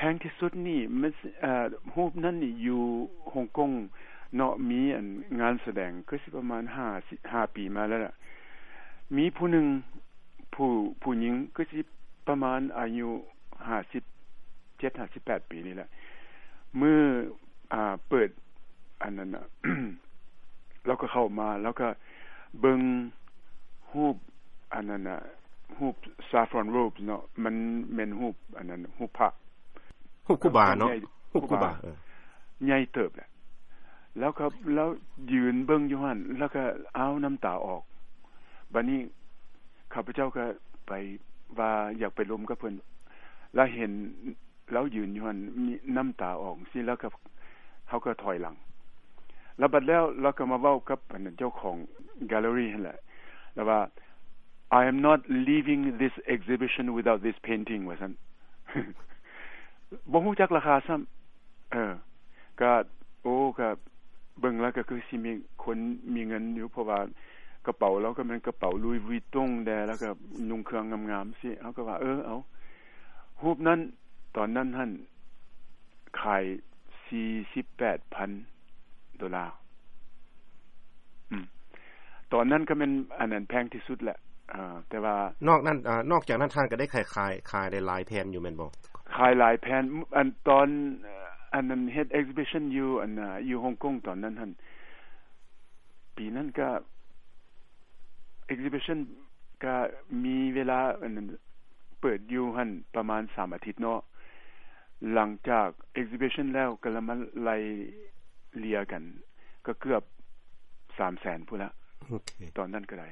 ພງທີ່ສຸດນີ້ມັນ ເອີ ຮູບນັ້ນນີ້ຢູ່ຮົງກົງເນາະ ມີອັນງານສະແດງຄືຊິປະມານຫ້າ ຫ້າປີມາແລ້ວລະ ມີຜູ້ໜຶ່ງ ຜູ້ ຜູ້ຍິງຄືຊິປະມານອາຍຸຫ້າສິບເຈັດ ຫ້າສິບແປດປີນີ້ແຫຼະ ມື້ ອ່າ ເປີດອັນນັ້ນນະ ລາວກໍເຂົ້າມາ ລາວກໍເບິ່ງຮູບອັນນັ້ນນະ ຮູບ saffron robes ເນາະ ມັນແມ່ນຮູບອັນນັ້ນ ຮູບພະ ຮູບຄູບາເນາະ ຮູບຄູບາ ເອີ ໃຫຍ່ເຕີບແຫຼະ ລາວກໍ ລາວຢືນເບິ່ງຢູ່ຫັ້ນ ລາວກໍ ອ້າວ ນ້ຳຕາອອກ ບາດນີ້ຂ້າພະເຈົ້າກໍໄປວ່າຢາກໄປລົມກັບເພິ່ນ ລາວເຫັນລາວຢືນຢູ່ຫັ້ນ ນ້ຳຕາອອກຊີ້ ລາວກໍ ເຮົາກໍຖອຍຫຼັງ ລະບັດແລ້ວລາວກໍມາເວົ້າກັບອັນເຈົ້າຂອງ gallery ຫັ້ນແຫຼະ ລາວວ່າ I am not leaving this exhibition without this painting ວ່າຊັ້ນ ບໍ່ຮູ້ຈັກລາຄາຊ້ຳ ເອີ ກະ ໂອ້ ກະເບິ່ງແລ້ວກະຄືຊິມີຄົນມີເງິນຢູ່ ເພາະວ່າກະເປົາລາວກະແມ່ນກະເປົາ Louis Vuitton ແດ່ ແລ້ວກະນຸ່ງເຄື່ອງງາມໆ ຊີ້ ເຮົາກະວ່າ ເອີ ເອົາ ຮູບນັ້ນ ຕອນນັ້ນຫັ້ນ ຂາຍສີ່ສິບແປດພັນໂດລາ ອືມ ຕອນນັ້ນກະແມ່ນອັນນັ້ນແພງທີ່ສຸດແຫຼະ ເອີ ແຕ່ວ່າ ນອກນັ້ນ ເອີ ນອກຈາກນັ້ນທ່ານກະໄດ້ຂາຍ ຂາຍ ຂາຍໄດ້ຫຼາຍແຜ່ນຢູ່ແມ່ນບໍ່? ຂາຍຫຼາຍແຜ່ນ ອັນຕອນ ອັນນັ້ນເຮັດ exhibition ຢູ່ອັນນະ ຢູ່ຮົງກົງຕອນນັ້ນຫັ້ນ ປີນັ້ນກະ exhibition ກະມີເວລາອັນນັ້ນ ເປີດຢູ່ຫັ້ນປະມານສາມອາທິດເນາະ ຫຼັງຈາກ exhibition ແລ້ວກະລະມາໄລ່ເລ່ຍກັນ ກະເກືອບສາມແສນພຸ້ນລະ ໂອເຄ ຕອນນັ້ນກະໄດ້